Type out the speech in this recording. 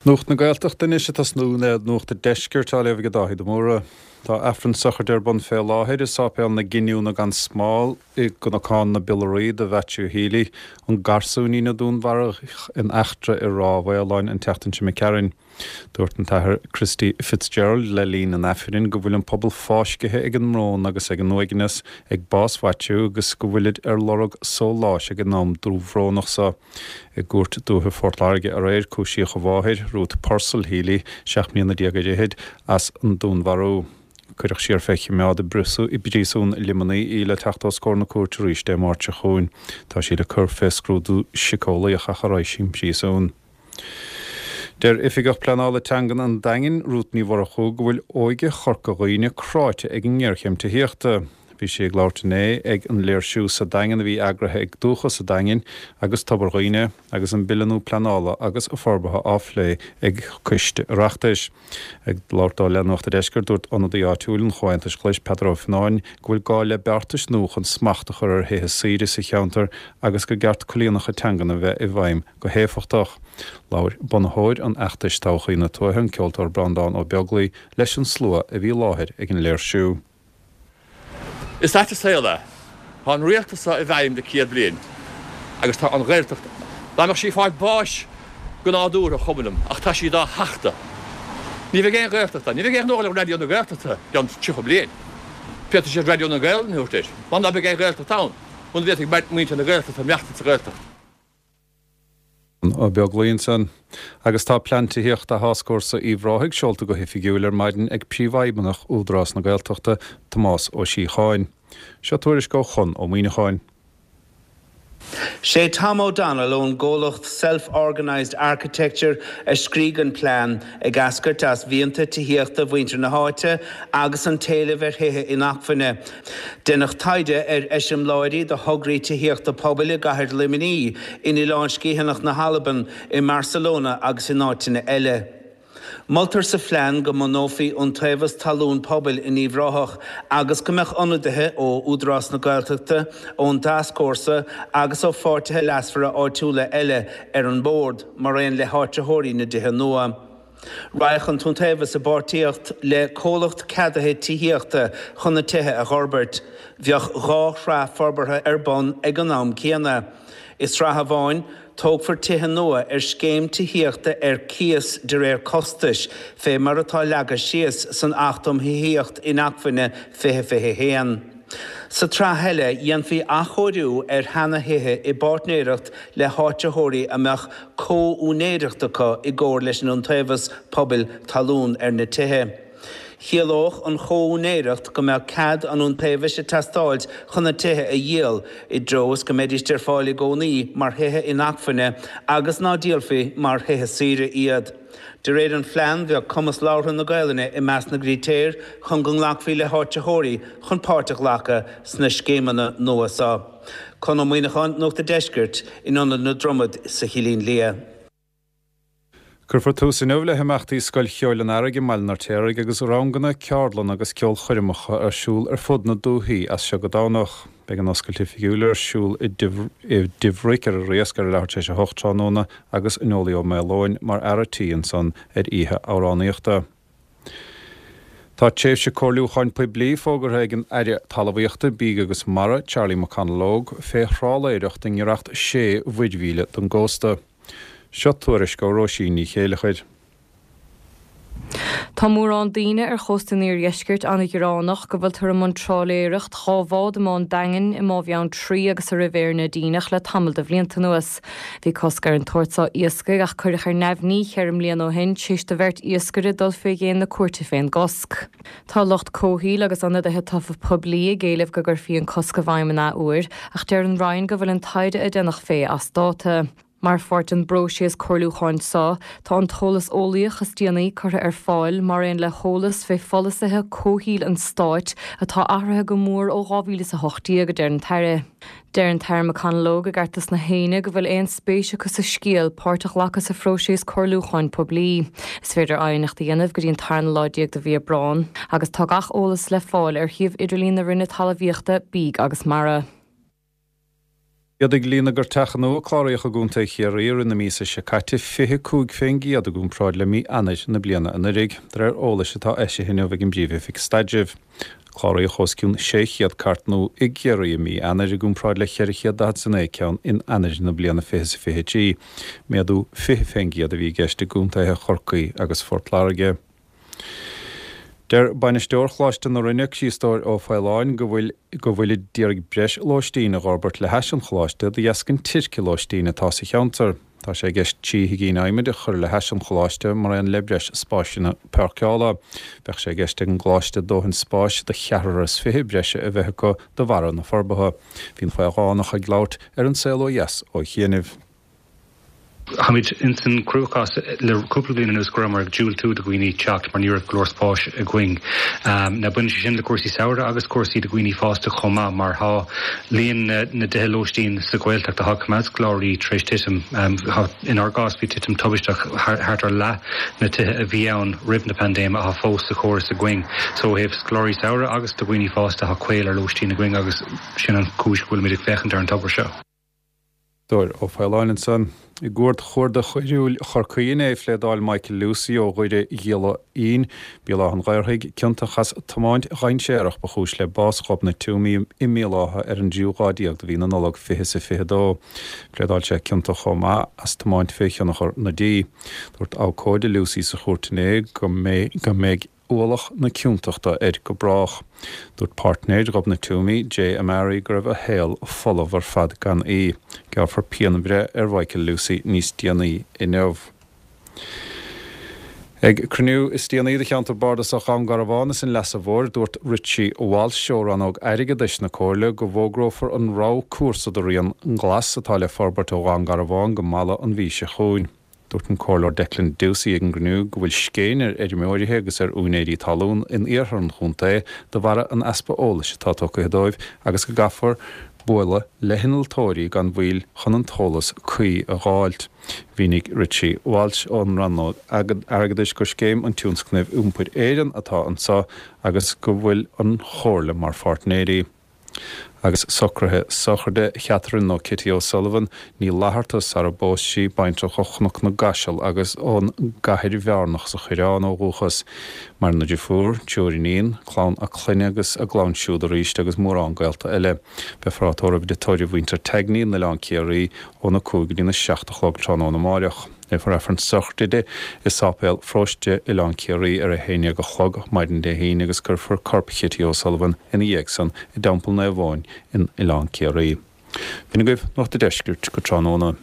Nuacht na Gaeltachta anois ag tosnú le Nuacht an Deiscirt á léamh ag Dáithí de Mórdha. Tá Aifreann sochraide ar bun fé láthair i Sáipéal na Giniúna gan Smál i gCnocán na bPiollaí do Mhaitiú Healy, an garsúinín a dúnmharaíodh in eachtra i Ráth Mhaoláin an tseachtain seo imigh tharainn. Dúirt an tAthair Christy Fitzgerald le linn an Aifrinn go bhfuil an pobal fáiscithe ag an mbrón agus ag an uaigneas ag bás Mhaitiú agus go bhfuilid ar lorg sóláis ag an am dúbhrónach so. I gCúirt Dúiche Phort Láirge aréir, cúisíodh a mháthair, Ruth Purcell Healy, 17 mbliana ar fhichid, as an dúnmharú. Cuireadh siar fé choimeád i bPríosún Luimnigh í le teacht os comhair na cúirte arís Dé Máirt seo chugainn. Tá sí le cur fé scrúdú siceolaíoch ach a raghaidh sí 'on bpríosún. Deir Oifigeach Pleanála Teangan an Daingin, Rút Ní Mhurchú, go bhfuil óige Chorca Dhuibhne cráite ag an ngéarchéim tithíochta. Bhí sí ag labhairt inné ag an léirsiú sa Daingean a bhí eagraithe ag Dúchas an Daingin agus Tobar Dhuibhne agus an Bille nua Pleanála agus Forbartha á phlé ag Coiste Oireachtais. Ag labhairt dó le Nuacht a' Deiscirt, dúirt ionadaí áitiúil an Chomhaontais Ghlais, Peadar Ó Fionnáin, go bhfuil gá le beartais nua chun smacht a chur ar thithe saoire sa cheantar agus gur ceart coinníollacha teangan a bheith i bhfeidhm go héifeachtach. Labhair bunaitheoir an fheachtais Todhchaí na Tuaithe, an ceoltóir Breandán Ó Beaglaoi, leis an slua a bhí i láthair ag an léirsiú. Is ait an saol é. Tá an rialtas seo i bhfeidhm le 100 bliain agus tá an Ghaeltacht, dá mbeadh sí ag fáil báis go nádúrtha, chuma liom, ach tá sí dá thachtadh. Ní bheidh aon Ghaeltacht ann. Ní bheidh aon ghnó le Raidió na Gaeltachta i gceann 30 bliain. Féadfaidh siad Raidió na Gaelainne a thabhairt air, mar ná beidh aon Ghaeltacht ann, muna bhféadfaidh muintir na Gaeltachta maireachtaint sa Ghaeltacht. Ó Beaglaoi ansan. Agus tá plean tithíochta Tháscfhórsa Uíbh Ráthaigh seolta go hoifigiúil ar maidin ag Príomhfheidhmeannach Údarás na Gaeltachta, Tomás Ó Síocháin. Seo tuairisc ó Chonn Ó Muíneacháin. Sé Tom O'Donnell ón gcomhlacht Self Organised Architecture a scrígh an plean, ag eascairt as mhianta tithíochta mhuintir na háite agus an t-éileamh ar thithe inacmhainne. Deineadh taighde ar eiseamláirí de thograí tithíochta pobail i gcathair Luimnigh, in Oileán Sgitheanach na hAlban, i mBarcelona agus in áiteanna eile. Moltar sa phlean go mbunófaí iontaobhas talún pobail in Uíbh Ráthach agus go mbeadh ionadaithe ó Údarás na Gaeltachta, ón dTascfhórsa agus ó pháirtithe leasmhara áitiúla eile ar an mbord, mar aon le háitritheoirí na dtithe nua. Raghadh an t-iontaobhas i bpáirtíocht le comhlacht ceadaithe tithíochta chun na tithe a dh'fhorbairt. Bheadh 2 shraith forbartha ar bun ag an am céanna. I sraith amháin, tógfar tithe nua ar scéim tithíochta ar cíos de réir costais, fé mar atá leagtha síos san Acht um Thithíocht Inacmhainne 2021. Sa tsraith eile, dhéanfaí athchóiriú ar sheana-thithe i bpáirtnéireacht le háitritheoirí a mbeadh comh-úinéireacht acu i gcomhar leis an Iontaobhas Pobail Talún ar na tithe. Chiallódh an chomh-úinéireacht go mbeadh cead an Iontaobhais ag teastáilt chun na tithe a dhíol, i dtreo is go mbeidíst ar fáil i gcónaí mar thithe inacmhainne agus ná díolfaí mar thithe saoire iad. De réir an phlean, bheadh cumas labhartha na Gaelainne i measc na gcritéir chun go nglacfaí le háitritheoirí chun páirt a ghlacadh sna scéimeanna nua seo. Conn Ó Muíneacháin, Nuacht a' Deiscirt, in Ionad na Dromad sa Chillín Liath. Cuirfear tús inniu le himeachtaí Scoil Cheoil an Earraigh i mBaile an Fheirtéaraigh agus ranganna, ceardlanna agus ceolchoirmeacha ar siúl ar fud na dúichí as seo go Domhnach. Beidh an oscailt oifigiúil ar siúl i dTigh Bhric ar an Riasc ar a leathuair tar éis a hocht tráthnóna agus Nollaí Ó Maoileoin mar fhear a' tí ansan ar oíche amhránaíochta. Tá tréimhse comhairliúcháin poiblí fógartha ag an Aire Talmhaíochta, Bídh agus Mara, Charlie McConalogue, fé thrálaeireacht i ngiorracht sé mhuirmhíle don gcósta. Seo tuairisc ó Róisín Ní Chéileachair. Tá mórán daoine ar chósta an iardheiscirt an-ghearánach go bhfuiltear i mbun trálaeireacht 2 bhád i mBá an Daingin, i mBá Bheanntraí agus i Ribhéar na Díneach le tamall de bhlianta anuas. Bhí cosc ar an tsórt seo iascaigh ach cuireadh ar neamhní cheithre mbliana ó shin tar éis do bheirt iascaire dul fé dhéin na cúirte fén gcosc. Tá lucht comhshaoil agus ionadaithe tofa poiblí ag éileamh go gcuirfí an cosc i bhfeidhm an athuair ach deir an Roinn go bhfuil an taighde a déanadh fé as dáta. Mar pháirt den bpróiseas comhairliúcháin seo, tá an t-eolas eolaíoch is déanaí curtha ar fáil, mar aon le heolas fé pholasaithe comhshaoil an Stáit atá athraithe go mór ó 2018, a deir an tAire. Deir an tAire McConalogue i gCartlas na hAoine go bhfuil aon spéis acu sa scéal páirt a ghlacadh sa phróiseas comhairliúcháin poiblí. Is féidir aighneacht a dhéanamh go dtí an tarna lá déag de mhí Aibreán, agus tá gach eolas le fáil ar shuíomh idirlín na Roinne Talmhaíochta, Bídh agus Mara. Mhéadaigh líon na gcairteacha nua a cláraíodh i gContae Chiarraí i rith na míosa seo caite 25% i gcomparáid le mí Eanáir na bliana anuraidh, de réir eolais atá eisithe inniu ag an bPríomh-Oifig Staidrimh. Cláraíodh os cionn 600 cairt nua i gCiarraí i mí Eanáir i gcomparáid le 449 ceann in Eanáir na bliana 2023. Méadú 20% a bhí i gceist i gcontaetha Chorcaí agus Phort Láirge. Deir bainisteoir Choláiste na Rinne, Criostóir Ó Faoláin, go bhfuil go bhfuilid d'iarraidh breis lóistín a dh'fhorbairt le hais an choláiste de dheasca an teirce lóistín atá sa cheantar. Tá sé i gceist 3 thigín adhmaid a chur le hais an choláiste mar aon le breis spáiseanna páirceála. Bheadh sé i gceist ag an gcoláiste dóthain spáis do cheathrar is fiche breise a bheith acu de bharra na forbartha. Bhí an Faolánach ag labhairt ar An Saol Ó Dheas ó chianaibh. Táimid ins an cruachás le cúpla bliain anuas go rabhamar ag diúltú do dhaoine teacht mar ní raibh go leor spáis againn. Now baineann sé sin le cúrsaí samhraidh agus cúrsaí do dhaoine fásta chomh maith mar tá líon na dtithe lóistín sa Ghaeltacht atá ag coimeád scoláirí tar éis titim. Inár gcás bhí titim tubaisteach, thart ar leath na tithe a bhí ann roimh na paindéime atá fós sa chóras againn. So ó thaobh scoláirí samhraidh agus do dhaoine fásta tá caol ar lóistín againn agus sin an chúis go bhfuilimid ag féachaint ar an togra seo. Criostóir Ó Faoláin ansan. I gCúirt Chuarda Choiriúil Chorcaí inné, phléadáil Michael Lucey ó Dhoire Ghiolla Fhinn, Béal Átha an Ghaorthaidh, ciontach as tiomáint dhainséarach ba chúis le bás Ghobnait Twomey i mBéal Átha ar an dtríú lá déag de mhí na Nollag 2022. Phléadáil sé ciontach chomh maith as tiomáint fé thionchar na dí. Dúirt abhcóide Lucey sa chúirt inné go mbeidh ualach na ciontachta air go brách. Dúirt páirtnéir Ghobnait Twomey, Jay Amari, go raibh a shaol folamh ar fad gan í. Gearrfar pianbhreith ar Mhichael Lucey níos déanaí inniu. Ag cruinniú is déanaí de cheantar bardasach Dhún Garbhán is an Leasa Mhóir, dúirt Richie Walsh ó rannóg airgeadais na Comhairle go bhfógrófar an rogha cúrsa do Rian Glas atá le forbairt ó Dhún Garbhán go Mala an mhí seo chugainn. Dúirt an Comhairleoir Declan Ducey ag an gcruinniú go bhfuil scéin ar fheirmeoirithe agus ar úinéirí talún in iarthar an chontae de bharra an easpa eolais atá tugtha dóibh agus go gcaithfear bualadh le hinnealtóirí gan mhoill chun an t-eolas cuí a dh'fháilt. Mhínigh Richie Walsh ón Rannóg Airgeadais gur scéim an Tionscnaimh Iompair Éireann atá anseo agus go bhfuil an Chomhairle mar pháirtnéirí. Agus socruithe sochraide Chatherine nó Kitty O'Sullivan, Ní Fhlatharta, sara bpós sí, baintreach ó Chnoc na gCaiseal agus ón gCathair Bhearnach sa Choireán ó dhúchas. Maireann a deirfiúr, triúr iníon, clann a clainne agus a gclann siúd arís agus mórán gaolta eile. Beifear á tórramh i dtigh tórraimh mhuintir Tagney in Oileán Ciarraí óna 5 go dtína 7 a chlog tráthnóna amáireach. Léifear Aifreann sochraide di i Sáipéal Pharóiste Oileán Ciarraí ar a haon dhéag a chlog maidin Dé hAoine agus cuirfear corp Chitty O'Sullivan ina dhiaidh san i dTeampall Naomh Eoin in Oileán Ciarraí. B'in agaibh Nuacht a' Deiscirt go tráthnóna.